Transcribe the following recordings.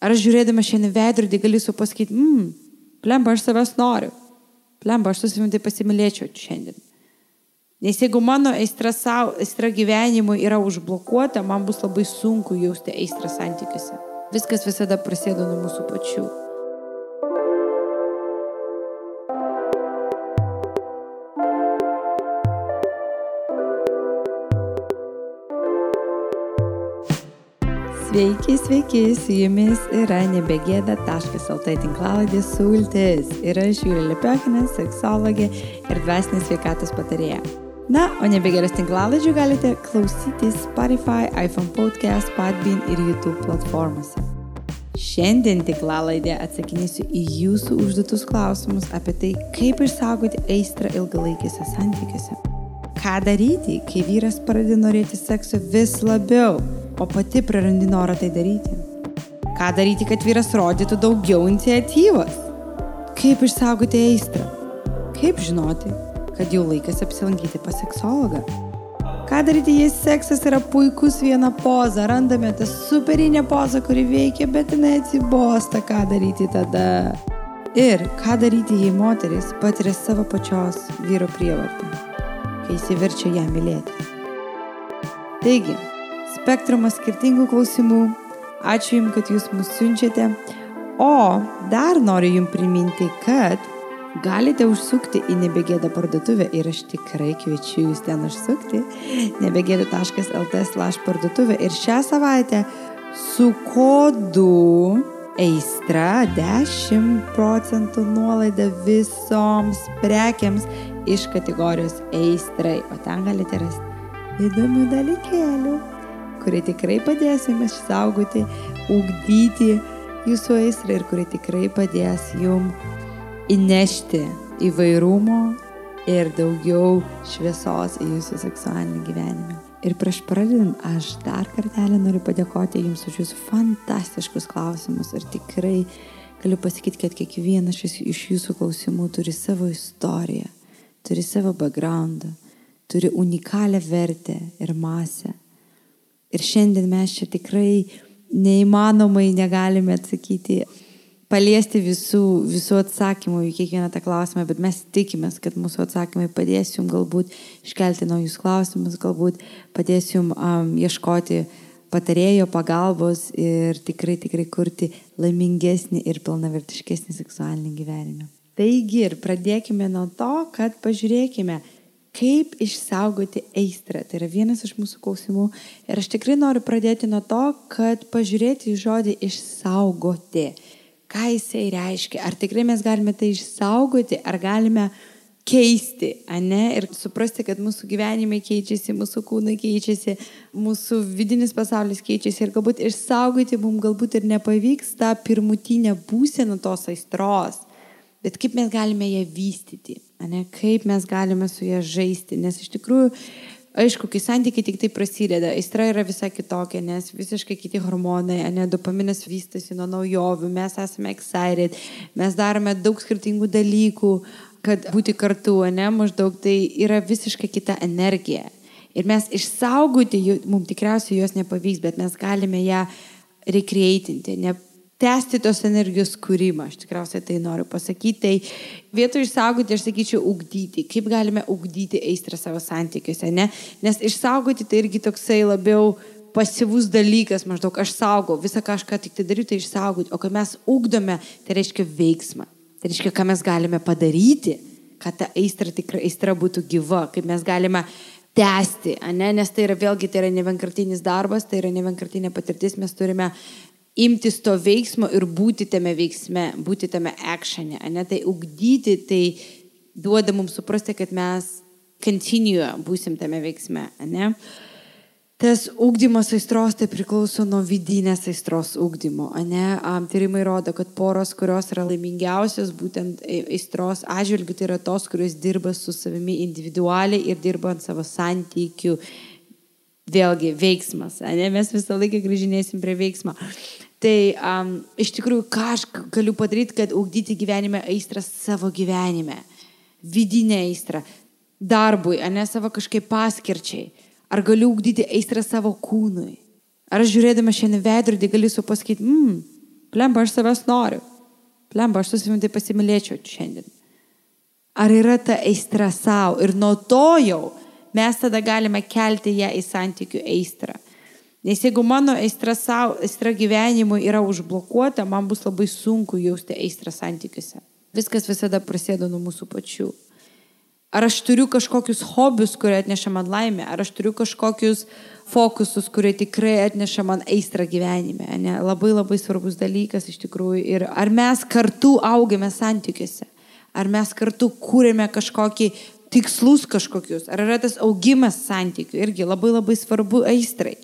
Ar aš žiūrėdama šiandien veidrodį galiu sau pasakyti, plemba, aš savęs noriu. Plemba, aš su savimi tai pasimylėčiau šiandien. Nes jeigu mano aistra gyvenimui yra užblokuota, man bus labai sunku jausti aistrą santykiuose. Viskas visada prasideda nuo mūsų pačių. Sveiki, su jumis yra nebegėda.lt tinklalaidė Sultis. Ir aš Julija Lepiokinė, seksologė ir dvasinės sveikatos patarėja. Na, o nebegėdas tinklalaidžių galite klausyti Spotify, iPhone Podcast, Podbean ir YouTube platformose. Šiandien tinklalaidė atsakinėsiu į jūsų užduotus klausimus apie tai, kaip išsaugoti aistrą ilgalaikiuose santykiuose. Ką daryti, kai vyras pradeda norėti sekso vis labiau, o pati prarandi norą tai daryti? Ką daryti, kad vyras rodytų daugiau iniciatyvos? Kaip išsaugoti aistrą? Kaip žinoti, kad jau laikas apsilankyti pas seksologą? Ką daryti, jei seksas yra puikus viena poza, randame tą superinę pozą, kuri veikia, bet jinai atsibosta, ką daryti tada? Ir ką daryti, jei moteris patiria savo pačios vyro prievartą, kai įsiverčia ją mylėti? Taigi, spektrumas skirtingų klausimų. Ačiū Jums, kad Jūs mus siunčiate. O dar noriu Jums priminti, kad galite užsukti į Nebegėda parduotuvę ir aš tikrai kviečiu Jūs ten užsukti. nebegėda.lt/parduotuvė ir šią savaitę su kodu aistra 10% nuolaida visoms prekiams iš kategorijos aistrai. O ten galite rasti įdomių dalykėlių, kurie tikrai padės jums išsaugoti, ugdyti jūsų aistrą ir kurie tikrai padės jums įnešti įvairumo ir daugiau šviesos į jūsų seksualinį gyvenimą. Ir prieš pradedant, aš dar kartelį noriu padėkoti jums už jūsų fantastiškus klausimus ir tikrai galiu pasakyti, kad kiekvienas iš jūsų klausimų turi savo istoriją, turi savo backgroundą, turi unikalią vertę ir masę. Ir šiandien mes čia tikrai neįmanomai negalime atsakyti, paliesti visų atsakymų į kiekvieną tą klausimą, bet mes tikimės, kad mūsų atsakymai padės jums galbūt iškelti naujus klausimus, galbūt padės jums ieškoti patarėjo pagalbos ir tikrai kurti laimingesnį ir pilnavertiškesnį seksualinį gyvenimą. Taigi ir pradėkime nuo to, kad pažiūrėkime, kaip išsaugoti aistrą. Tai yra vienas iš mūsų klausimų. Ir aš tikrai noriu pradėti nuo to, kad pažiūrėti į žodį išsaugoti. Ką jisai reiškia? Ar tikrai mes galime tai išsaugoti, ar galime keisti, ane? Ir suprasti, kad mūsų gyvenimai keičiasi, mūsų kūnai keičiasi, mūsų vidinis pasaulis keičiasi. Ir galbūt išsaugoti mums galbūt ir nepavyks tą pirmutinę būseną tos aistros. Bet kaip mes galime ją vystyti, ane? Kaip mes galime su ją žaisti, nes iš tikrųjų, aišku, kai santykiai tik tai prasideda, aistra yra visai kitokia, nes visiškai kiti hormonai, ane? Dopaminas vystosi nuo naujovių, mes esame excited, mes darome daug skirtingų dalykų, kad būti kartu, ane? Maždaug tai yra visiškai kita energija. Ir mes išsaugoti, mums tikriausiai jos nepavyks, bet mes galime ją recreatinti, tęsti tos energijos kūrimą, aš tikriausiai tai noriu pasakyti. Tai vietoj išsaugoti, aš sakyčiau, ugdyti. Kaip galime ugdyti aistrą savo santykiuose, ne? Nes išsaugoti tai irgi toksai labiau pasyvus dalykas, maždaug aš saugau, visą kažką tik tai daryti, tai išsaugoti. O kai mes ugdome, tai reiškia veiksmą. Tai reiškia, ką mes galime padaryti, kad ta aistra būtų gyva, kaip mes galime tęsti, ane? Nes tai yra vėlgi, tai yra nevienkartinis darbas, tai yra nevienkartinė patirtis, mes turime imtis to veiksmo ir būti tame veiksme, būti tame actione, ane? Tai ugdyti, tai duoda mums suprasti, kad mes būsim tame veiksme, ane? Tas ugdymas aistros tai priklauso nuo vidinės aistros ugdymo, ane? Tyrimai rodo, kad poros, kurios yra laimingiausios būtent aistros atžvilgiu, tai yra tos, kurios dirba su savimi individualiai ir dirba ant savo santykių. Vėlgi, veiksmas, ane? Mes visą laiką grįžinėsim prie veiksmo. Tai iš tikrųjų, ką aš galiu padaryti, kad ugdyti gyvenime aistrą savo gyvenime, vidinę aistrą, darbui, ane? Savo kažkaip paskirčiai. Ar galiu ugdyti aistrą savo kūnui? Ar aš žiūrėdama šiandien veidrodį galiu sau pasakyti, Plemba, aš savęs noriu. Plemba, aš su savimi tai pasimylėčiau šiandien. Ar yra ta aistra savo? Ir nuo to jau mes tada galime kelti ją į santykių aistrą. Nes jeigu mano aistra savo, aistra gyvenimui yra užblokuota, man bus labai sunku jausti aistrą santykiuose. Viskas visada prasideda nuo mūsų pačių. Ar aš turiu kažkokius hobius, kurie atneša man laimę? Ar aš turiu kažkokius fokusus, kurie tikrai atneša man aistrą gyvenime? Ne? Labai labai svarbus dalykas iš tikrųjų. Ir ar mes kartu augame santykiuose? Ar mes kartu kūrėme kažkokį tikslus kažkokius? Ar yra tas augimas santykių? Irgi labai labai svarbu aistrai.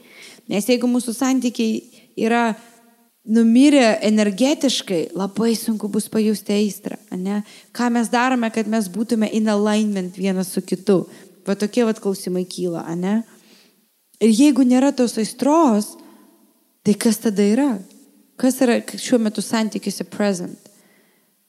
Nes jeigu mūsų santykiai yra numirę energetiškai, labai sunku bus pajusti aistrą. Ne? Ką mes darome, kad mes būtume in alignment vienas su kitu? Va tokie klausimai kyla. Ne? Ir jeigu nėra tos aistros, tai kas tada yra? Kas yra šiuo metu santykiuose present?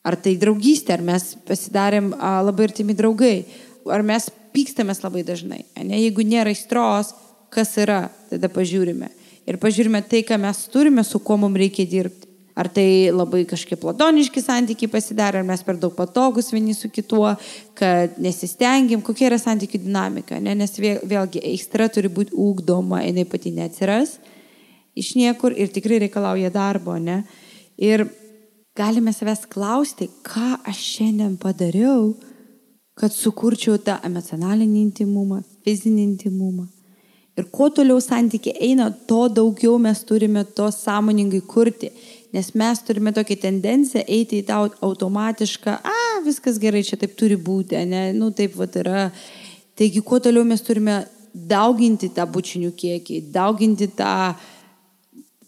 Ar tai draugystė, ar mes pasidarėm labai artimi draugai, ar mes pykstamės labai dažnai. Ne? Jeigu nėra aistros, kas yra, tada pažiūrime. Ir pažiūrime tai, ką mes turime, su kuo mums reikia dirbti. Ar tai labai kažkiek platoniški santykiai pasidarė, ar mes per daug patogus vieni su kituo, kad nesistengiam, kokia yra santykių dinamika. Ne? Nes vėlgi aistra turi būti ugdoma, jinai pati neatsiras iš niekur ir tikrai reikalauja darbo. Ne? Ir galime savęs klausti, ką aš šiandien padariau, kad sukurčiau tą emocionalinį intimumą, fizinį intimumą. Ir kuo toliau santykiai eina, to daugiau mes turime to sąmoningai kurti. Nes mes turime tokią tendenciją eiti į tą automatišką, viskas gerai, čia taip turi būti, ne? Taip yra. Taigi, kuo toliau mes turime dauginti tą bučinių kiekį, dauginti tą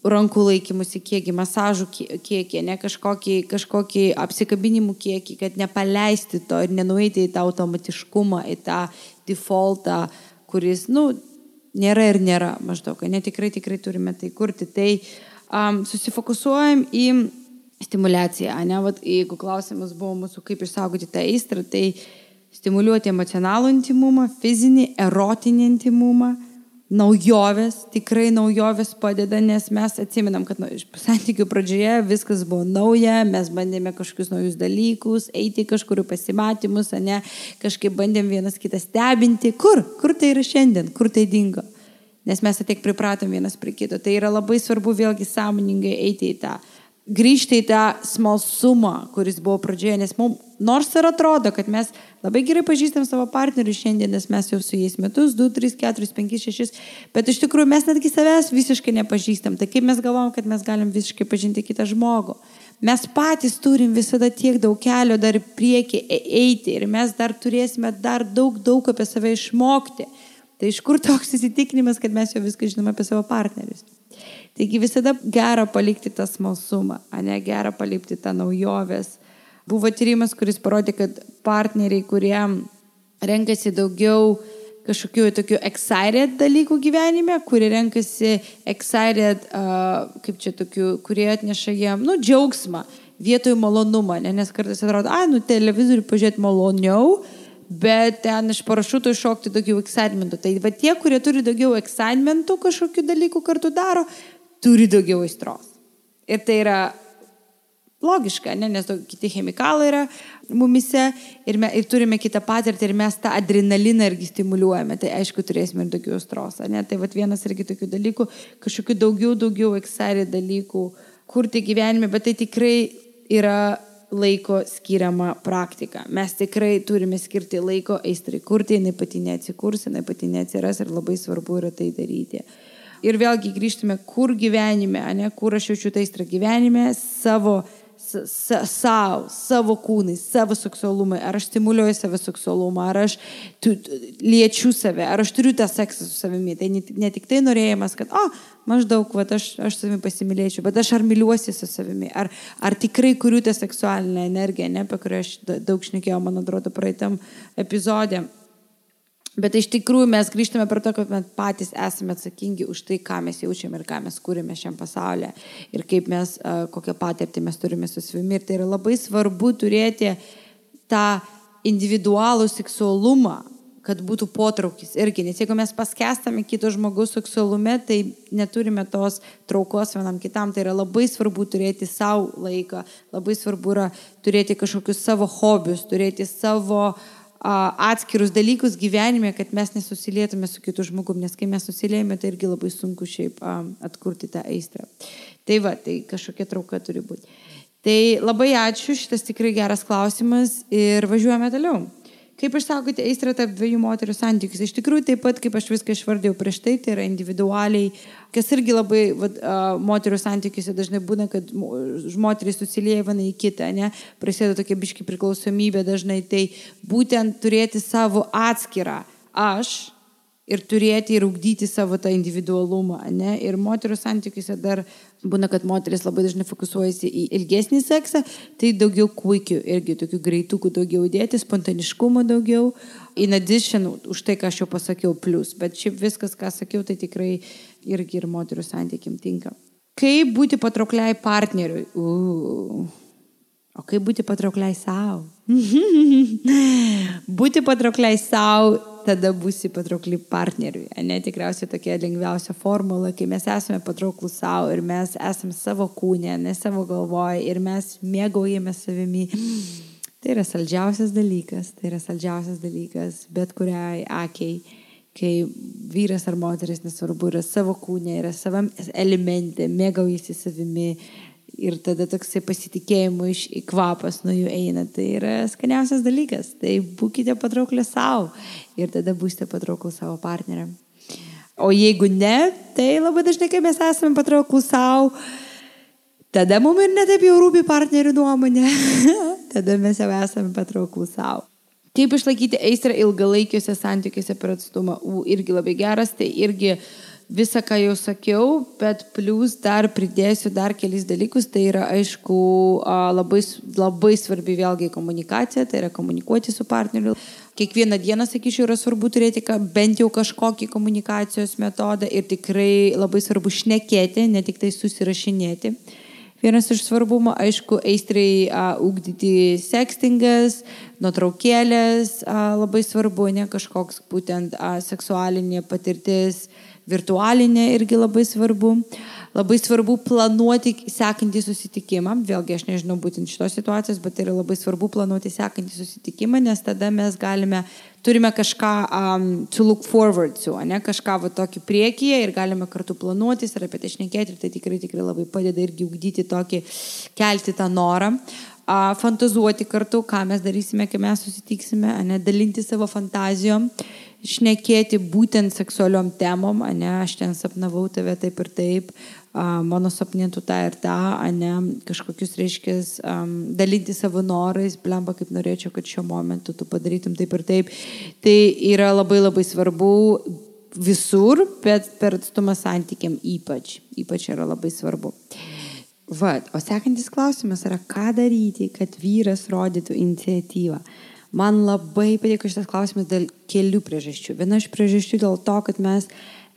rankų laikymusi kiekį, masažų kiekį, ne kažkokį apsikabinimų kiekį, kad nepaleisti to ir nenueiti į tą automatiškumą, į tą defaultą, kuris, nėra ir nėra maždaug, ne tikrai turime tai kurti. Tai susifokusuojam į stimuliaciją, ne? Jeigu klausimas buvo mūsų, kaip išsaugoti tą aistrą, tai stimuliuoti emocionalų intimumą, fizinį, erotinį intimumą, naujovės, tikrai naujovės padeda, nes mes atsimenam, kad santykių pradžioje viskas buvo nauja, mes bandėme kažkokius naujus dalykus, eiti kažkurių pasimatymus, ne, kažkaip bandėm vienas kitą stebinti. Kur tai yra šiandien, kur tai dingo? Nes mes tiek pripratom vienas prie kito. Tai yra labai svarbu vėlgi sąmoningai eiti į tą, grįžti į tą smalsumą, kuris buvo pradžioje, nes mums nors ir atrodo, kad mes labai gerai pažįstam savo partnerių šiandien, nes mes jau su jais metus, 2, 3, 4, 5, 6, bet iš tikrųjų mes netgi savęs visiškai nepažįstam. Tai kaip mes galvom, kad mes galim visiškai pažinti kitą žmogų? Mes patys turim visada tiek daug kelio dar priekį eiti ir mes dar turėsime dar daug apie save išmokti. Tai iš kur toks įsitikinimas, kad mes jau viską žinome apie savo partnerius? Taigi visada gera palikti tą smalsumą, ne gera palikti tą naujovės. Buvo tyrimas, kuris parodė, kad partneriai, kurie renkasi daugiau kažkokių tokių excited dalykų gyvenime, kurie renkasi excited, kurie atneša jiem, džiaugsmą vietoj malonumą, nes kartais atrodo, televizorių pažiūrėti maloniau, bet ten iš parašuto iššokti daugiau excitementų. Tai va tie, kurie turi daugiau excitementų kažkokių dalykų kartu daro, turi daugiau aistros. Ir tai yra logiška, nes kiti chemikalai yra mumise ir turime kitą patirtį ir mes tą adrenaliną irgi stimuliuojame. Tai aišku, turėsime ir daugiau aistros. Tai va vienas irgi tokių dalykų, kažkokių daugiau excited dalykų kurti gyvenime, bet tai tikrai yra laiko skiriama praktika. Mes tikrai turime skirti laiko aistrai kurti, jinai pati neatsikurs, jinai pati neatsiras ir labai svarbu yra tai daryti. Ir vėlgi grįžtume, kur gyvenime, kur aš jaučiu tą aistrą gyvenime, savo kūnai, savo seksualumai, ar aš stimuliuoju savo seksualumą, ar aš liečiu save, ar aš turiu tą seksą su savimi. Tai ne tik tai norėjimas, kad maždaug aš savimi pasimylėčiau, bet aš ar myliuosi su savimi, ar tikrai kuriu tą seksualinę energiją, apie kurią aš daug šnekėjau, man atrodo, praeitam epizode. Bet iš tikrųjų mes grįžtame prie to, kad mes patys esame atsakingi už tai, ką mes jaučiame ir ką mes kūrime šiam pasaulyje ir kaip mes, kokią patirtį mes turime su savimi. Ir tai yra labai svarbu turėti tą individualų seksualumą, kad būtų potraukis irgi, nes jeigu mes paskestame kito žmogaus seksualume, tai neturime tos traukos vienam kitam, tai yra labai svarbu turėti savo laiką, labai svarbu yra turėti kažkokius savo hobius, turėti savo atskirus dalykus gyvenime, kad mes nesusilietume su kitu žmogum, nes kai mes susiliejame, tai irgi labai sunku šiaip atkurti tą aistrą. Tai va, tai kažkokia trauka turi būti. Tai labai ačiū, šitas tikrai geras klausimas ir važiuojame toliau. Kaip išsaugoti aistrą tarp dviejų moterų santykius? Iš tikrųjų, taip pat, kaip aš viską išvardėjau prieš tai yra individualiai, kas irgi labai moterų santykiuose dažnai būna, kad moterys susilieja viena į kitą, ne? Prasideda tokia biški priklausomybė dažnai, tai būtent turėti savo atskirą aš ir turėti ir ugdyti savo tą individualumą, ne? Ir moterų santykiuose dar būna, kad moteris labai dažnai fokusuojasi į ilgesnį seksą, tai daugiau kuikių, irgi tokių greitukų daugiau dėti, spontaniškumo daugiau, in addition, už tai, ką aš jau pasakiau, plus. Bet šiaip viskas, ką sakiau, tai tikrai irgi ir moterų santykiam tinka. Kaip būti patraukliai partneriui? O kaip būti patraukliai savo? Būti patraukliai savo, tada būsi patraukli partneriui. Ne, tikriausiai tokia lengviausia formula, kai mes esame patrauklus savo ir mes esame savo kūne, ne savo galvoje ir mes mėgaujame savimi. Tai yra saldžiausias dalykas, bet kuriai akiai, kai vyras ar moteris, nesvarbu, yra savo kūne, yra savam elemente, mėgaujasi savimi. Ir tada toksai pasitikėjimo kvapas nuo jų eina. Tai yra skaniausias dalykas. Tai būkite patrauklę savo ir tada būsite patrauklų savo partneriam. O jeigu ne, tai labai dažnai, kai mes esame patrauklų savo, tada mums ir netaip jau rūpi partnerių nuomonė. Tada mes jau esame patrauklų savo. Kaip išlaikyti aistrą ilgalaikiuose santykiuose per atstumą? Irgi labai geras, tai irgi visą, ką jau sakiau, bet plus dar pridėsiu dar kelis dalykus, tai yra aišku labai svarbi vėlgi komunikacija, tai yra komunikuoti su partneriu. Kiekvieną dieną, sakyčiau, yra svarbu turėti bent jau kažkokį komunikacijos metodą ir tikrai labai svarbu šnekėti, ne tik tai susirašinėti. Vienas iš svarbumo, aišku, aistrai ugdyti sextingas, nuotraukėlės, labai svarbu, ne kažkoks būtent seksualinė patirtis, virtualinė irgi labai svarbu. Labai svarbu planuoti sekantį susitikimą. Vėlgi, aš nežinau būtent šitos situacijos, bet tai yra labai svarbu planuoti sekantį susitikimą, nes tada mes turime kažką to look forward to, ne? Kažką tokį priekyje ir galime kartu planuotis ir apie tai šnekėti ir tai tikrai labai padeda irgi ugdyti tokį, kelti tą norą. Fantazuoti kartu, ką mes darysime, kai mes susitiksime, ne? Dalinti savo fantazijom, šnekėti būtent seksualiom temom, ne? Aš ten sapnavau tave taip ir taip, mano sapnintų tą ir tą, ne? Kažkokius reiškės, dalinti savo norais, blemba, kaip norėčiau, kad šiuo momentu tu padarytum taip ir taip. Tai yra labai labai svarbu visur, bet per atstumą santykiam ypač yra labai svarbu. O sekantis klausimas yra, ką daryti, kad vyras rodytų iniciatyvą. Man labai patiko šitas klausimas dėl kelių priežasčių. Viena iš priežasčių dėl to, kad mes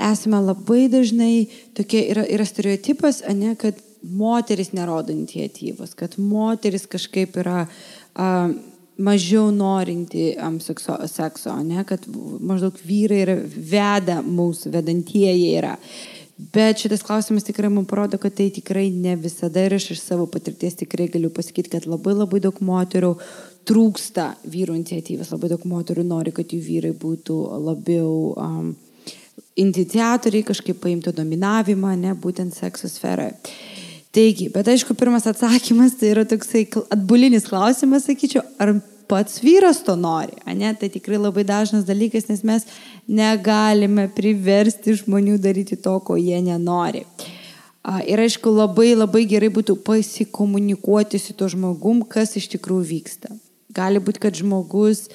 esame labai dažnai tokie, yra stereotipas, ne, kad moteris nerodo iniciatyvos, kad moteris kažkaip yra mažiau norinti sekso, ne, kad maždaug vyrai veda mūsų, vedantieji yra. Bet šitas klausimas tikrai man parodo, kad tai tikrai ne visada ir aš iš savo patirties tikrai galiu pasakyti, kad labai daug moterų trūksta vyrų iniciatyvos, labai daug moterų nori, kad jų vyrai būtų labiau iniciatoriai, kažkaip paimtų dominavimą, ne, būtent sekso sferoje. Taigi, bet aišku, pirmas atsakymas tai yra toksai atbulinis klausimas, sakyčiau, ar pats vyras to nori, ne? Tai tikrai labai dažnas dalykas, nes mes negalime priversti žmonių daryti to, ko jie nenori. Ir aišku, labai gerai būtų pasikomunikuoti su to žmogum, kas iš tikrųjų vyksta. Gali būti, kad žmogus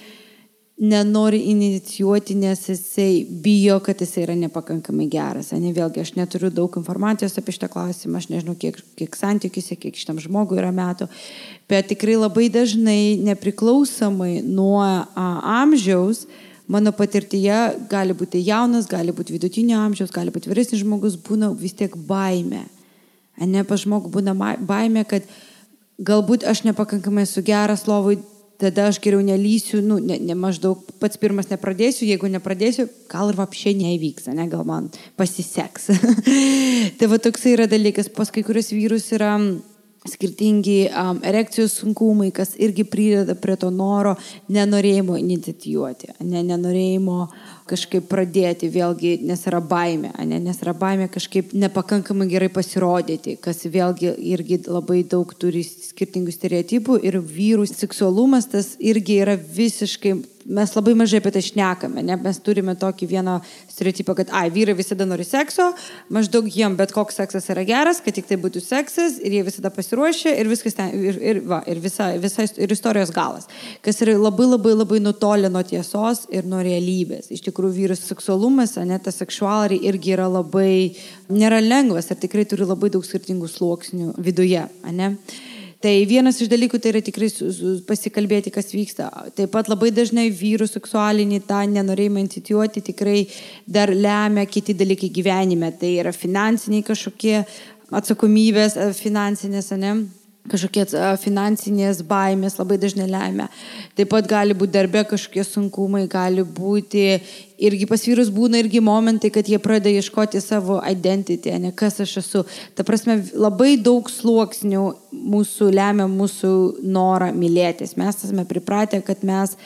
nenori inicijuoti, nes jisai bijo, kad jisai yra nepakankamai geras. Ne, vėlgi, aš neturiu daug informacijos apie šitą klausimą, aš nežinau, kiek santykiuose, kiek šitam žmogui yra metų, bet tikrai labai dažnai, nepriklausomai nuo amžiaus, mano patirtyje gali būti jaunas, gali būti vidutinio amžiaus, gali būti vyresnis žmogus, būna vis tiek baimė. Ne, pas žmogų būna baimė, kad galbūt aš nepakankamai esu geras lovui, tada aš geriau nelysiu, maždaug pats pirmas nepradėsiu, jeigu nepradėsiu, gal ir vapšė neįvyks, ne, gal man pasiseks. Tai va toksai yra dalykas, pas kai kurios vyrus yra skirtingi erekcijos sunkumai, kas irgi prideda prie to noro, nenorėjimo inicijuoti, nenorėjimo kažkaip pradėti, vėlgi, nes yra baimė, nes yra baimė kažkaip nepakankamai gerai pasirodyti, kas vėlgi irgi labai daug turi skirtingų stereotipų ir vyrų seksualumas tas irgi yra visiškai, mes labai mažai apie tai šnekame, ne? Mes turime tokį vieną stereotipą, kad vyrai visada nori sekso, maždaug jiem bet koks seksas yra geras, kad tik tai būtų seksas ir jie visada pasiruošia ir viskas ten, ir istorijos galas, kas yra labai nutolę nuo tiesos ir nuo realybės. Iš tikrųjų, vyrų seksualumas, tas sexuality irgi yra labai, nėra lengvas ir tikrai turi labai daug skirtingų sluoksnių viduje, ne? Tai vienas iš dalykų tai yra tikrai pasikalbėti, kas vyksta. Taip pat labai dažnai vyrų seksualinį tą nenorėjimą inicijuoti tikrai dar lemia kiti dalykai gyvenime. Tai yra finansiniai kažkokie atsakomybės, finansinės, kažkokie finansinės baimės labai dažnai lemia. Taip pat gali būti darbe kažkokie sunkumai, gali būti irgi pas vyrus būna irgi momentai, kad jie pradeda ieškoti savo identity, kas aš esu. Ta prasme, labai daug sluoksnių mūsų lemia mūsų norą mylėtis. Mes esame pripratę, kad mes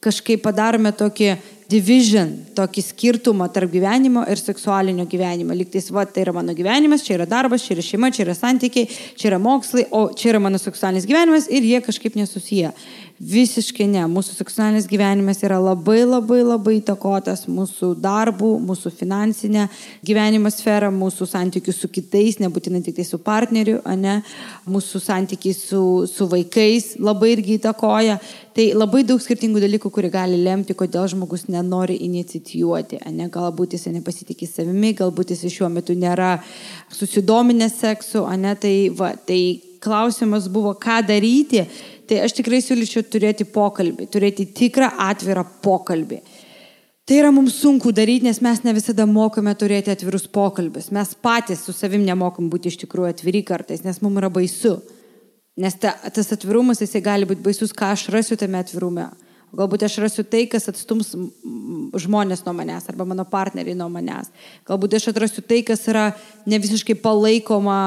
kažkaip padarome tokį division, tokį skirtumą tarp gyvenimo ir seksualinio gyvenimo. Lygtais, tai yra mano gyvenimas, čia yra darbas, čia yra šeima, čia yra santykiai, čia yra mokslai, o čia yra mano seksualinis gyvenimas ir jie kažkaip nesusiję. Visiškai ne. Mūsų seksualinis gyvenimas yra labai įtakotas mūsų darbų, mūsų finansinę gyvenimo sferą, mūsų santykių su kitais, nebūtinai tik tai su partneriu, mūsų santykiai su vaikais labai irgi įtakoja. Tai labai daug skirtingų dalykų, kurie gali lemti, kodėl žmogus nenori inicijuoti. Galbūt jis nepasitikė savimi, galbūt jis šiuo metu nėra susidominęs seksu. Tai klausimas buvo, ką daryti. Tai aš tikrai siūlyčiau turėti pokalbį, turėti tikrą atvirą pokalbį. Tai yra mums sunku daryti, nes mes ne visada mokame turėti atvirus pokalbius. Mes patys su savim nemokam būti iš tikrųjų atviri kartais, nes mums yra baisu. Nes tas atvirumas, jisai gali būti baisus, ką aš rasiu tame atvirume. Galbūt aš rasiu tai, kas atstums žmonės nuo manęs arba mano partneriai nuo manęs. Galbūt aš atrasiu tai, kas yra ne visiškai palaikoma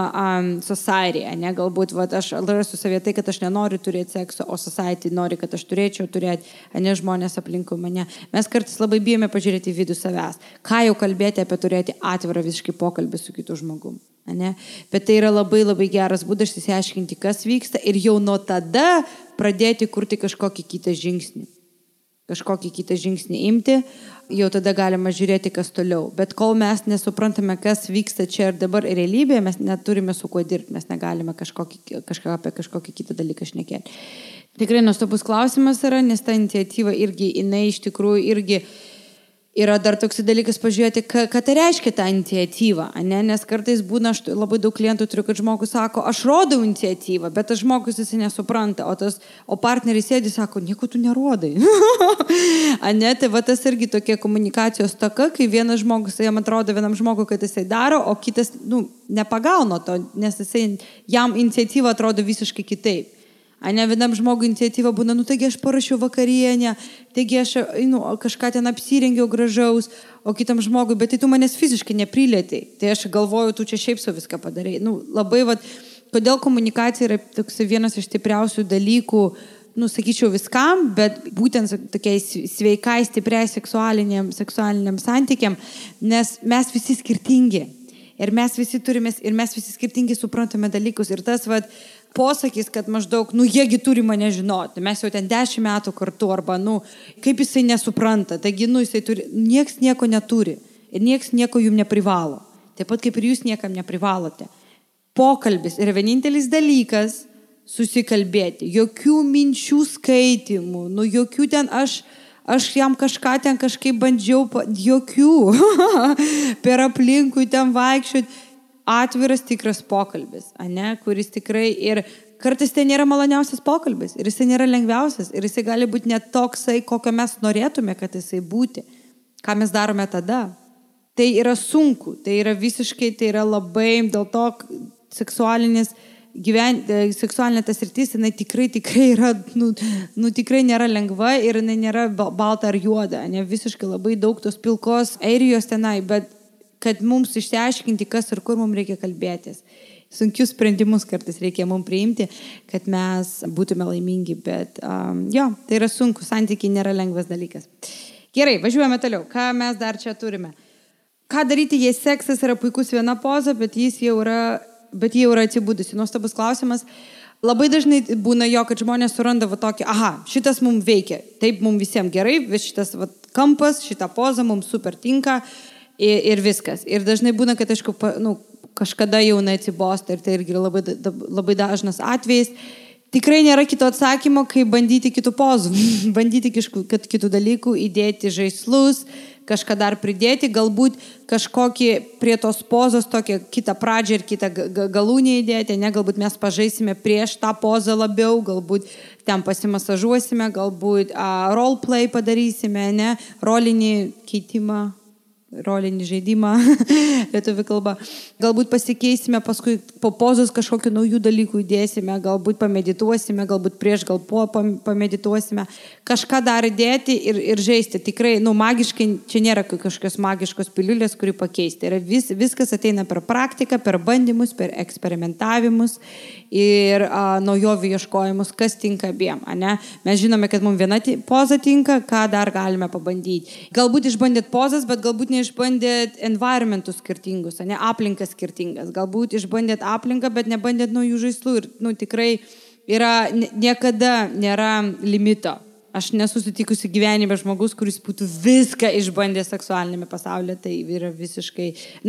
society. Galbūt aš rasiu savie tai, kad aš nenoriu turėti sekso, o society nori, kad aš turėčiau turėti, žmonės aplinkui mane. Mes kartais labai bijome pažiūrėti į vidų savęs. Ką jau kalbėti apie turėti atvirą visiškai pokalbį su kitu žmogum. Bet tai yra labai geras būdas išsiaiškinti, kas vyksta ir jau nuo tada pradėti kurti kažkokį kitą žingsnį. Kažkokį kitą žingsnį imti, jau tada galima žiūrėti, kas toliau. Bet kol mes nesuprantame, kas vyksta čia ir dabar realybėje, mes neturime su kuo dirbti, mes negalime apie kažkokį kitą dalyką šnekėti. Tikrai nuostabus klausimas yra, nes ta iniciatyva irgi, jinai iš tikrųjų irgi yra dar toks dalykas pažiūrėti, ką tai reiškia ta iniciatyva, nes kartais būna, aš labai daug klientų turiu, kad žmogus sako, aš rodau iniciatyvą, bet tas žmogus jis nesupranta, o partneris sėdi, sako, nieko tu nerodai. Tai tas irgi tokia komunikacijos taka, kai vienas žmogus, jam atrodo vienam žmogui, kad jisai daro, o kitas nepagauna to, nes jam iniciatyva atrodo visiškai kitaip. Vienam žmogui iniciatyva būna, taigi aš parašiau vakarienę, taigi aš kažką ten apsirengiau gražaus, o kitam žmogui, bet tai tu manęs fiziškai neprilėtai. Tai aš galvoju, tu čia šiaip su viską padarai. Labai, kodėl komunikacija yra toks vienas iš stipriausių dalykų, sakyčiau viskam, bet būtent tokiai sveikai, stipriai seksualiniam santykiam, nes mes visi skirtingi. Ir mes visi skirtingi suprantame dalykus. Ir tas, posakis, kad maždaug, jiegi turi mane žinoti, mes jau ten 10 metų kartu, arba, kaip jisai nesupranta, taigi, jisai turi, nieks nieko neturi ir nieks nieko jums neprivalo. Taip pat kaip ir jūs niekam neprivalote. Pokalbis yra vienintelis dalykas susikalbėti, jokių minčių skaitimų, jokių ten aš jam kažką ten kažkaip bandžiau, jokių, per aplinkui ten vaikščioti. Atviras tikras pokalbis, kuris tikrai ir kartais tai nėra maloniausias pokalbis ir jisai nėra lengviausias ir jisai gali būti net toksai, kokio mes norėtume, kad jisai būti. Ką mes darome tada? Tai yra sunku, tai yra visiškai, tai yra labai, dėl to seksualinis seksualinė tas sritis, jinai tikrai yra, tikrai nėra lengva ir jinai nėra balta ar juoda, ne visiškai labai daug tos pilkos airijos tenai, bet kad mums išsiaiškinti, kas ir kur mums reikia kalbėtis. Sunkius sprendimus kartais reikia mums priimti, kad mes būtume laimingi, bet tai yra sunku, santykiai nėra lengvas dalykas. Gerai, važiuojame toliau. Ką mes dar čia turime? Ką daryti, jei seksas yra puikus viena poza, bet jie jau yra atsibudusi? Nuostabus klausimas. Labai dažnai būna jo, kad žmonės suranda tokį, šitas mums veikia, taip mums visiems gerai, šitas kampas, šita poza mums super tinka ir viskas. Ir dažnai būna, kad aišku, kažkada jau atsibosta ir tai irgi labai dažnas atvejis. Tikrai nėra kito atsakymo, kaip bandyti kitų pozų, bandyti kitų dalykų, įdėti žaislus, kažką dar pridėti, galbūt kažkokį prie tos pozos tokią kitą pradžią ir kitą galūnį įdėti, ne, galbūt mes pažaisime prieš tą pozą labiau, galbūt ten pasimasažuosime, galbūt roleplay padarysime, ne, rolinį keitimą. Rolinį žaidimą, lietuvių kalba. Galbūt pasikeisime, paskui po pozos kažkokių naujų dalykų įdėsime, galbūt pamedituosime, galbūt prieš, gal po pamedituosime. Kažką dar įdėti ir žaisti. Tikrai, magiškai, čia nėra kažkokios magiškos piliulės, kuri pakeisti. Ir viskas ateina per praktiką, per bandymus, per eksperimentavimus ir naujovių ieškojimus, kas tinka abiem. Ne? Mes žinome, kad mums viena poza tinka, ką dar galime pabandyti. Galbūt išbandėt pozas, bet galbūt išbandėt environmentus skirtingus, ne, aplinkas skirtingas. Galbūt išbandėt aplinką, bet nebandėt naujų žaislų. Ir tikrai niekada nėra limito. Aš nesusitikusi gyvenime žmogus, kuris būtų viską išbandę seksualinėme pasaulyje. Tai yra visiškai,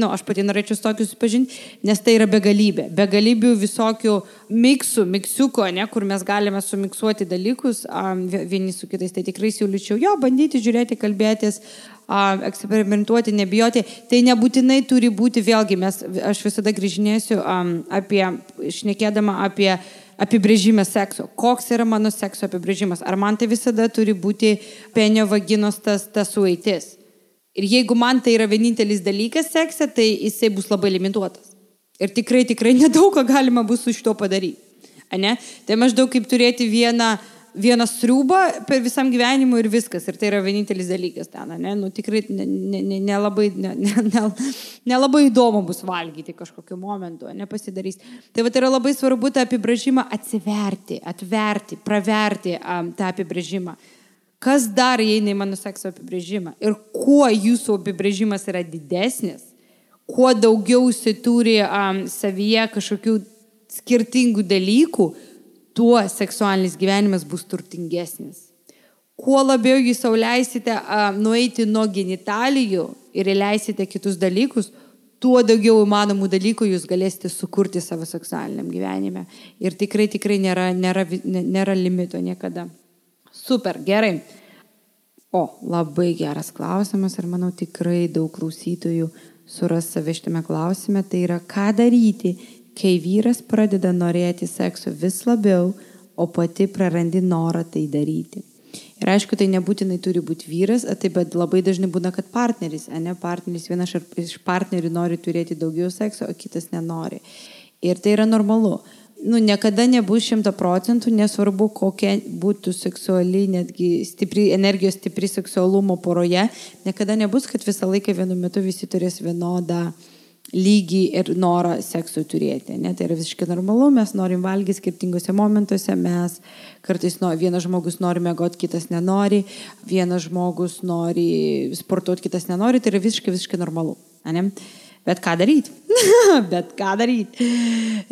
aš pati norėčiau su tokiu susipažinti, nes tai yra begalybė. Begalibių visokių miksiuko, ne, kur mes galime sumiksuoti dalykus vieni su kitais. Tai tikrai siūlyčiau bandyti, žiūrėti, kalbėtis, eksperimentuoti, nebijoti. Tai nebūtinai turi būti, vėlgi, aš visada grįžinėsiu šnekėdama apie apibrėžimas sekso. Koks yra mano sekso apibrėžimas? Ar man tai visada turi būti penio vaginos tas sueitis? Ir jeigu man tai yra vienintelis dalykas sekse, tai jisai bus labai limituotas. Ir tikrai nedaug ką galima bus su šito padaryti. Ne? Tai maždaug kaip turėti vieną sriubą per visam gyvenimui ir viskas. Ir tai yra vienintelis dalykas ten. Ne? Tikrai nelabai įdomu bus valgyti kažkokiu momentu, nepasidarys. Tai yra labai svarbu tą apibrėžimą atverti, praverti tą apibrėžimą. Kas dar įeina į mano sekso apibrėžimą? Ir kuo jūsų apibrėžimas yra didesnis, kuo daugiau jis turi savyje kažkokių skirtingų dalykų, tuo seksualinis gyvenimas bus turtingesnis. Kuo labiau jūs sau leisite nueiti nuo genitalijų ir leisite kitus dalykus, tuo daugiau įmanomų dalykų jūs galėsite sukurti savo seksualiniam gyvenime. Ir tikrai nėra limito niekada. Super, gerai. Labai geras klausimas ir manau tikrai daug klausytojų suras save šitame klausime. Tai yra, ką daryti, kai vyras pradeda norėti sekso vis labiau, o pati prarandi norą tai daryti. Ir aišku, tai nebūtinai turi būti vyras, bet labai dažnai būna, kad partneris, vienas iš partnerių nori turėti daugiau sekso, o kitas nenori. Ir tai yra normalu. Niekada nebus 100%, nesvarbu, kokia būtų seksuali, netgi energijos stipri seksualumo poroje, niekada nebus, kad visą laiką vienu metu visi turės vienodą lygį ir norą seksui turėti. Ne? Tai yra visiškai normalu, mes norim valgyti skirtingose momentuose, mes kartais vienas žmogus nori mėgoti, kitas nenori, vienas žmogus nori sportuoti, kitas nenori, tai yra visiškai normalu. Ne? Bet ką daryti?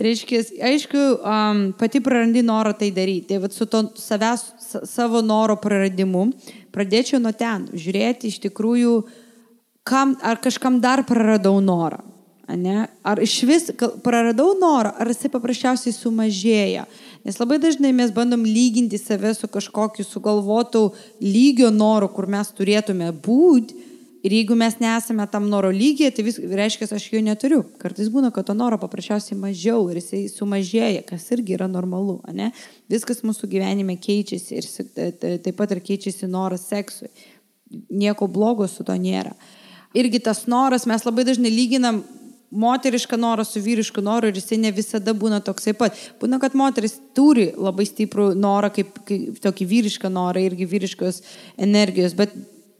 Reiškia, aišku, pati prarandi norą tai daryti. Tai su to savo noro praradimu pradėčiau nuo ten, žiūrėti iš tikrųjų, ar kažkam dar praradau norą. Ne? Ar iš vis praradau norą, ar jisai paprasčiausiai sumažėja. Nes labai dažnai mes bandom lyginti save su kažkokiu sugalvotų lygio noru, kur mes turėtume būti. Ir jeigu mes nesame tam noro lygyje, tai reiškia, aš jo neturiu. Kartais būna, kad to noro paprasčiausiai mažiau ir jisai sumažėja, kas irgi yra normalu. Ne? Viskas mūsų gyvenime keičiasi ir taip pat ir keičiasi noras seksui. Nieko blogo su to nėra. Irgi tas noras, mes labai dažnai lyginam moterišką norą su vyrišku noru ir jisai ne visada būna toksai pat. Būna, kad moteris turi labai stiprų norą, kaip tokį vyrišką norą, irgi vyriškos energijos, bet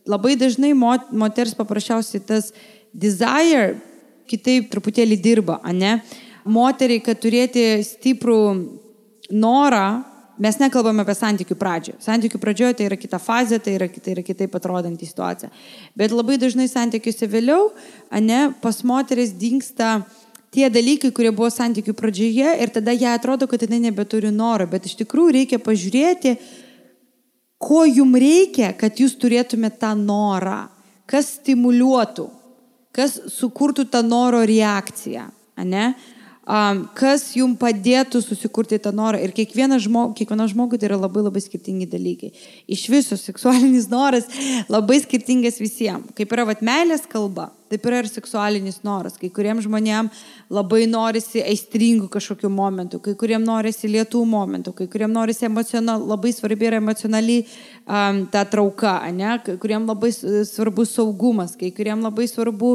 labai dažnai moters paprasčiausiai tas desire kitaip truputėlį dirba, ane? Moteriai, kad turėti stiprų norą, mes nekalbame apie santykių pradžią. Santykių pradžioje tai yra kita fazė, tai yra kitaip atrodanti situacija. Bet labai dažnai santykiuose vėliau, pas moteris dingsta tie dalykai, kurie buvo santykių pradžioje ir tada jai atrodo, kad jinai nebeturi noro. Bet iš tikrųjų reikia pažiūrėti, ko jums reikia, kad jūs turėtumėte tą norą. Kas stimuliuotų, kas sukurtų tą noro reakciją, ane? Kas jums padėtų susikurti tą norą. Ir kiekviena žmogui tai yra labai labai skirtingi dalykai. Iš viso seksualinis noras labai skirtingas visiems. Kaip yra meilės kalba, taip yra ir seksualinis noras. Kai kuriems žmonėms labai norisi aistringų kažkokių momentų, kai kuriems norisi lietų momentų, kai kuriems norisi labai svarbi yra emocionaliai ta trauka, ne? Kai kuriems labai svarbus saugumas, kai kuriems labai svarbu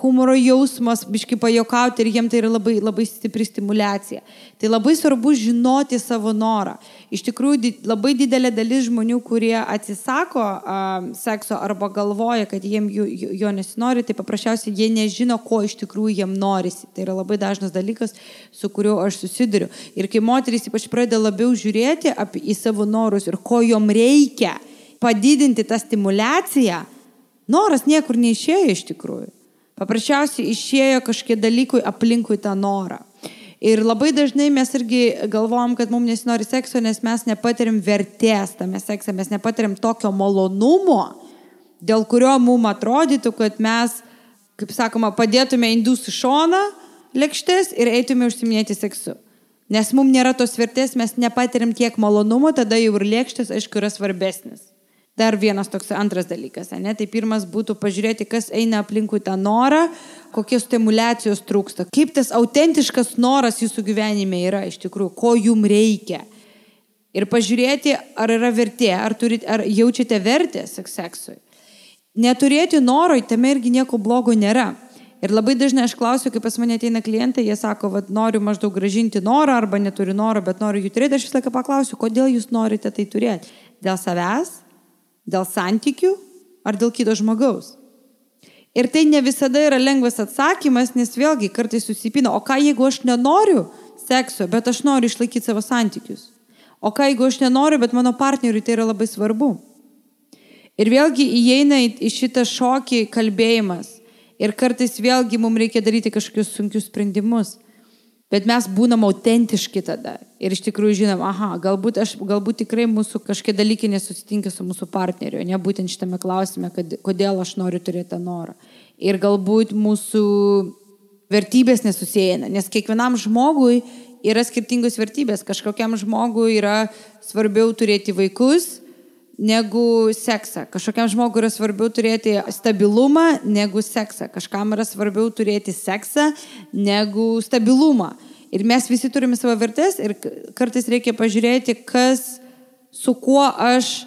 humoro jausmas, biškai pajokauti ir jiems tai yra labai, labai stipri stimulacija. Tai labai svarbu žinoti savo norą. Iš tikrųjų, labai didelė dalis žmonių, kurie atsisako sekso arba galvoja, kad jiems jo nesinori, tai paprasčiausiai jie nežino, ko iš tikrųjų jiems norisi. Tai yra labai dažnas dalykas, su kuriuo aš susiduriu. Ir kai moterys ypač pradeda labiau žiūrėti į savo norus ir ko jom reikia padidinti tą stimulaciją, noras niekur neišėjo iš tikrųjų. Paprasčiausiai išėjo kažkie dalykui aplinkui tą norą. Ir labai dažnai mes irgi galvojam, kad mums nesinori sekso, nes mes nepatiriam vertės tame sekse, mes nepatiriam tokio malonumo, dėl kurio mums atrodytų, kad mes, kaip sakoma, padėtume indus į šoną lėkštės ir eitume užsiminėti seksu. Nes mums nėra tos vertės, mes nepatiriam tiek malonumo, tada jau ir lėkštės, aišku, yra svarbesnis. Dar vienas toks antras dalykas, ne? Tai pirmas būtų pažiūrėti, kas eina aplinkui tą norą, kokios stimulacijos trūksta, kaip tas autentiškas noras jūsų gyvenime yra iš tikrųjų, ko jums reikia. Ir pažiūrėti, ar yra vertė, ar jaučiate vertę seksui. Neturėti noro, tame irgi nieko blogo nėra. Ir labai dažnai aš klausiu, kai pas mane ateina klientai, jie sako, noriu maždaug gražinti norą, arba neturiu noro, bet noriu jų turėti. Aš visą laiką paklausiu, kodėl jūs norite tai turėti? Dėl savęs? Dėl santykių ar dėl kito žmogaus. Ir tai ne visada yra lengvas atsakymas, nes vėlgi kartais susipina, o ką jeigu aš nenoriu sekso, bet aš noriu išlaikyti savo santykius? O ką jeigu aš nenoriu, bet mano partneriui tai yra labai svarbu? Ir vėlgi įeina į šitą šokį kalbėjimas. Ir kartais vėlgi mums reikia daryti kažkokius sunkius sprendimus. Bet mes būnam autentiški tada. Ir iš tikrųjų žinom, galbūt tikrai mūsų kažkokie dalykai nesusitinka su mūsų partneriu, ne būtent šitame klausime, kodėl aš noriu turėti tą norą. Ir galbūt mūsų vertybės nesusieina, nes kiekvienam žmogui yra skirtingos vertybės. Kažkokiam žmogui yra svarbiau turėti vaikus negu seksą. Kažkokiam žmogui yra svarbiau turėti stabilumą negu seksą. Kažkam yra svarbiau turėti seksą negu stabilumą. Ir mes visi turime savo vertės ir kartais reikia pažiūrėti, su kuo aš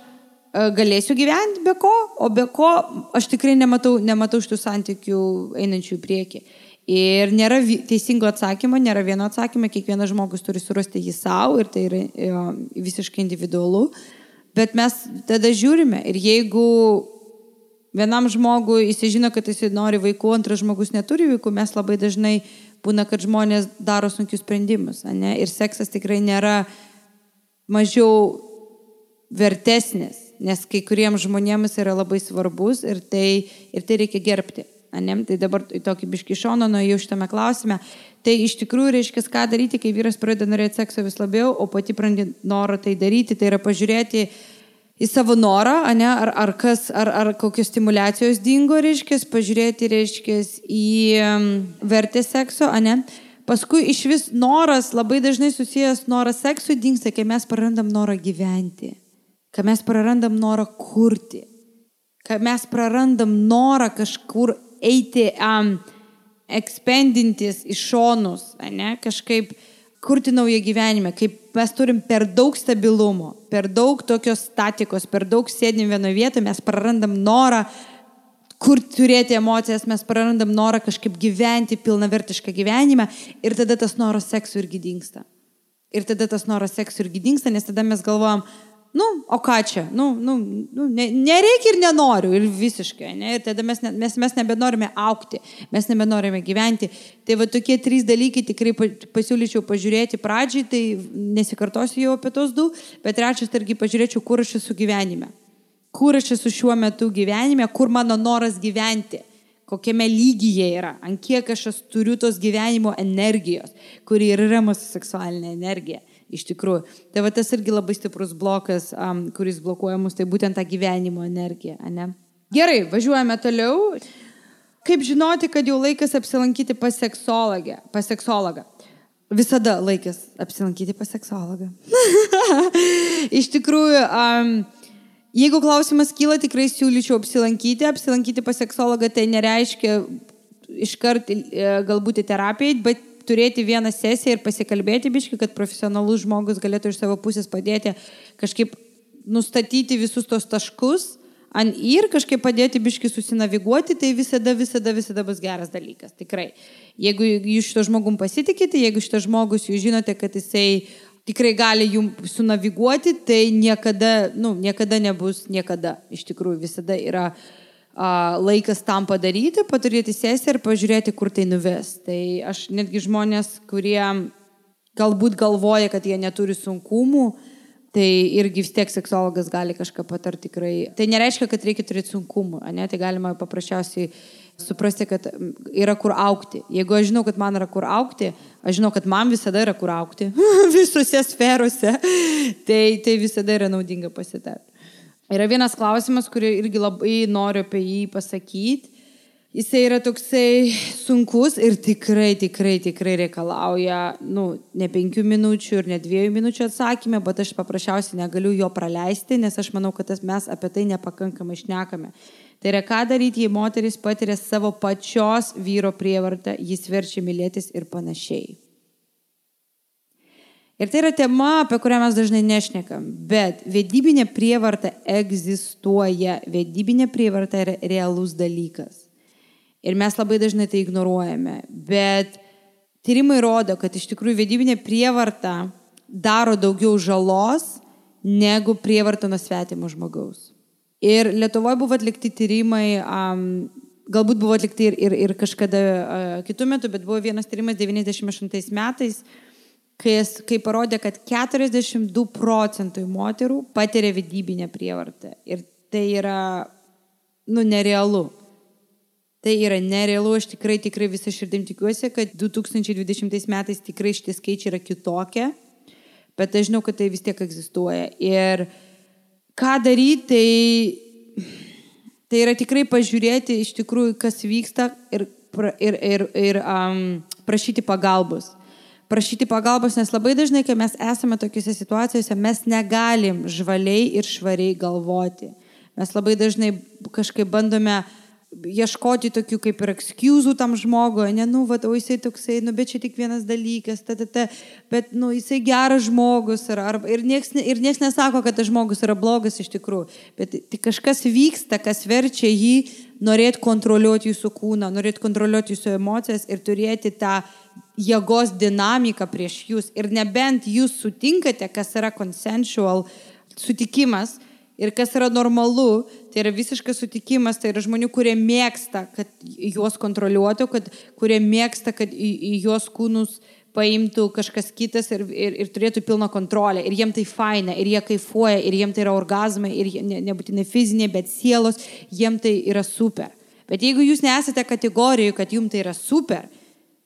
galėsiu gyventi be ko, o be ko aš tikrai nematau šitų santykių einančių į priekį. Ir nėra teisingo atsakymo, nėra vieno atsakymo, kiekvienas žmogus turi surasti jį savo ir tai yra visiškai individualu. Bet mes tada žiūrime ir jeigu vienam žmogui jis žino, kad jis nori vaikų, antras žmogus neturi vaikų, mes labai dažnai būna, kad žmonės daro sunkius sprendimus. Ne? Ir seksas tikrai nėra mažiau vertesnis, nes kai kuriems žmonėms yra labai svarbus ir tai reikia gerbti. Ne? Tai dabar tokį biškį šoną nuėjau šitame klausime. Tai iš tikrųjų reiškia, ką daryti, kai vyras pradeda norėti sekso vis labiau, o pati prarandi norą tai daryti. Tai yra pažiūrėti į savo norą, ne? ar kokios stimulacijos dingo, reiškia, pažiūrėti, reiškia, į vertę sekso, ne? Paskui iš vis noras, labai dažnai susijęs noras seksui dingsta, kai mes prarandam norą gyventi, kai mes prarandam norą kurti, kai mes prarandam norą kažkur eiti ekspendintis į šonus, ne? Kažkaip kurti naują gyvenimą, kaip mes turim per daug stabilumo, per daug tokios statikos, per daug sėdim vienoje vietoje, mes prarandam norą kur turėti emocijas, mes prarandam norą kažkaip gyventi pilnavertišką gyvenimą ir tada tas noras seksų irgi dingsta. Nes tada mes galvojam, o ką čia, nereikia ir nenoriu ir visiškai, ne? Ir tada mes nebenorime augti, mes nebenorime gyventi. Tai va tokie 3 dalykai tikrai pasiūlyčiau pažiūrėti pradžiai, tai nesikartosiu jau apie tos 2, bet trečias targi pažiūrėčiau, kur aš esu gyvenime. Kur aš esu šiuo metu gyvenime, kur mano noras gyventi, kokiame lygyje yra, ant kiek aš turiu tos gyvenimo energijos, kuri ir yra mūsų seksualinė energija, iš tikrųjų. Tai va tas irgi labai stiprus blokas, kuris blokuoja mus, tai būtent tą gyvenimo energiją, ne? Gerai, važiuojame toliau. Kaip žinoti, kad jau laikas apsilankyti pas seksologą? Visada laikas apsilankyti pas seksologą. Iš tikrųjų, jeigu klausimas kyla, tikrai siūlyčiau apsilankyti pas seksologą, tai nereiškia iškart galbūt į terapiją, bet turėti vieną sesiją ir pasikalbėti biškį, kad profesionalus žmogus galėtų iš savo pusės padėti kažkaip nustatyti visus tos taškus ir kažkaip padėti biškį susinaviguoti, tai visada bus geras dalykas, tikrai. Jeigu jūs šito žmogum pasitikite, jeigu šito žmogus jūs žinote, kad jisai tikrai gali jums sunaviguoti, tai niekada nebus niekada. Iš tikrųjų, visada yra laikas tam padaryti, paturėti sesiją ir pažiūrėti, kur tai nuves. Tai aš netgi žmonės, kurie galbūt galvoja, kad jie neturi sunkumų, tai irgi vis tiek seksologas gali kažką patarti tikrai. Tai nereiškia, kad reikia turėti sunkumų, ne? Tai galima paprasčiausiai suprasti, kad yra kur augti. Jeigu aš žinau, kad man yra kur augti, aš žinau, kad man visada yra kur augti, visose sferose, tai visada yra naudinga pasitarti. Yra vienas klausimas, kurį irgi labai noriu apie jį pasakyti. Jisai yra toksai sunkus ir tikrai reikalauja, ne 5 minučių ir ne 2 minučių atsakymę, bet aš paprasčiausiai negaliu jo praleisti, nes aš manau, kad mes apie tai nepakankamai šnekame. Tai yra, ką daryti, jei moteris patiria savo pačios vyro prievartą, jis verčia mylėtis ir panašiai. Ir tai yra tema, apie kurią mes dažnai nešnekam, bet vedybinė prievarta egzistuoja, vedybinė prievarta yra realus dalykas. Ir mes labai dažnai tai ignoruojame, bet tyrimai rodo, kad iš tikrųjų vedybinė prievarta daro daugiau žalos negu prievarta nuo svetimo žmogaus. Ir Lietuvoje buvo atlikti tyrimai, galbūt buvo atlikti ir kažkada kitų metų, bet buvo vienas tyrimas 98 metais, kai parodė, kad 42% moterų patiria vedybinę prievartą. Ir tai yra, nerealu. Tai yra nerealu, aš tikrai visą širdim tikiuosi, kad 2020 metais tikrai šitie skaičiai yra kitokie, bet aš žinau, kad tai vis tiek egzistuoja. Ir ką daryti, tai yra tikrai pažiūrėti iš tikrųjų, kas vyksta ir prašyti pagalbos. Prašyti pagalbos, nes labai dažnai, kai mes esame tokiuose situacijose, mes negalim žvaliai ir švariai galvoti. Mes labai dažnai kažkaip bandome ieškoti tokių kaip ir excusų tam žmogui, o jisai toksai, bet čia tik vienas dalykas, bet jisai geras žmogus ir nieks nesako, kad tas žmogus yra blogas iš tikrųjų, bet kažkas vyksta, kas verčia jį norėti kontroliuoti jūsų kūną, norėti kontroliuoti jūsų emocijas ir turėti tą jėgos dinamiką prieš jūs. Ir nebent jūs sutinkate, kas yra consensual sutikimas, ir kas yra normalu, tai yra visiškas sutikimas, tai yra žmonių, kurie mėgsta, kad juos kontroliuotų, kurie mėgsta, kad į juos kūnus paimtų kažkas kitas ir turėtų pilną kontrolę. Ir jiem tai faina, ir jie kaifuoja, ir jiem tai yra orgazmai, ir nebūtinai fizinė, bet sielos, jiem tai yra super. Bet jeigu jūs nesate kategorijoje, kad jums tai yra super,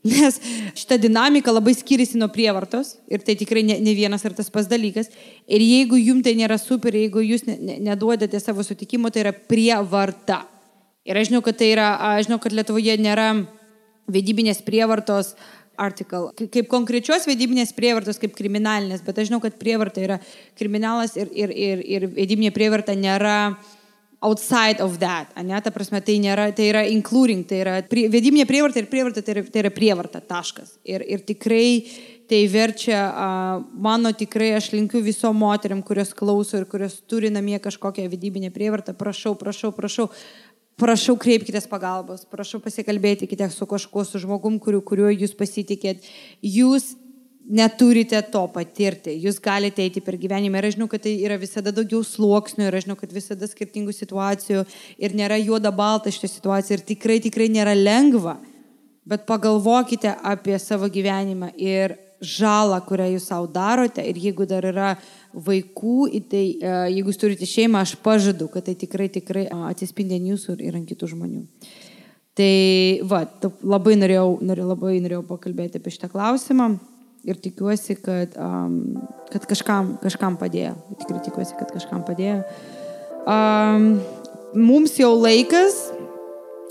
nes šita dinamika labai skiriasi nuo prievartos ir tai tikrai ne vienas ir tas pats dalykas. Ir jeigu jums tai nėra super, jeigu jūs neduodate savo sutikimo, tai yra prievarta. Ir aš žinau, kad Lietuvoje nėra vedybinės prievartos article, kaip konkrečios vedybinės prievartos, kaip kriminalinės, bet aš žinau, kad prievarta yra kriminalas ir vedybinė prievarta nėra outside of that, ne? Ta prasme, tai yra including, tai yra vedybinė prievarta ir prievarta, tai yra prievarta, taškas. Ir tikrai tai verčia, tikrai aš linkiu visom moteriam, kurios klauso ir kurios turi namie kažkokią vedybinę prievartą, prašau, prašau kreipkitės pagalbos, prašau pasikalbėkite su kažkuo, su žmogum, kuriuo jūs pasitikėt. Jūs neturite to patirti, jūs galite eiti per gyvenimą. Ir aš žinau, kad tai yra visada daugiau sluoksnių, ir aš žinau, kad visada skirtingų situacijų ir nėra juoda balta šitą situaciją ir tikrai nėra lengva. Bet pagalvokite apie savo gyvenimą ir žalą, kurią jūs savo darote. Ir jeigu dar yra vaikų, tai jeigu jūs turite šeimą, aš pažadu, kad tai tikrai atsispindi ant jūsų ir ant kitų žmonių. Tai labai norėjau pakalbėti apie šitą klausimą ir tikiuosi, kad kažkam padėjo. Tikrai tikiuosi, kad kažkam padėjo. Mums jau laikas.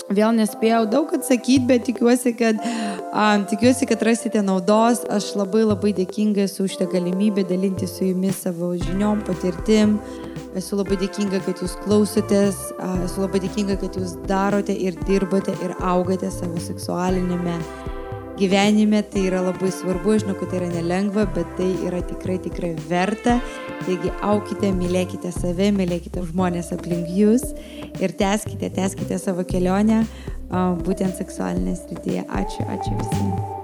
Vėl nespėjau daug atsakyti, bet tikiuosi, kad rasite naudos. Aš labai dėkinga esu už šitą galimybę dalinti su jumis savo žiniom, patirtim. Esu labai dėkinga, kad jūs klausotės. Esu labai dėkinga, kad jūs darote ir dirbate ir augate savo seksualinėme gyvenime. Tai yra labai svarbu. Aš žinau, kad tai yra nelengva, bet tai yra tikrai verta. Taigi aukite, mylėkite save, mylėkite žmonės aplink jūs ir tęskite savo kelionę būtent seksualinėje srityje. Ačiū visiems.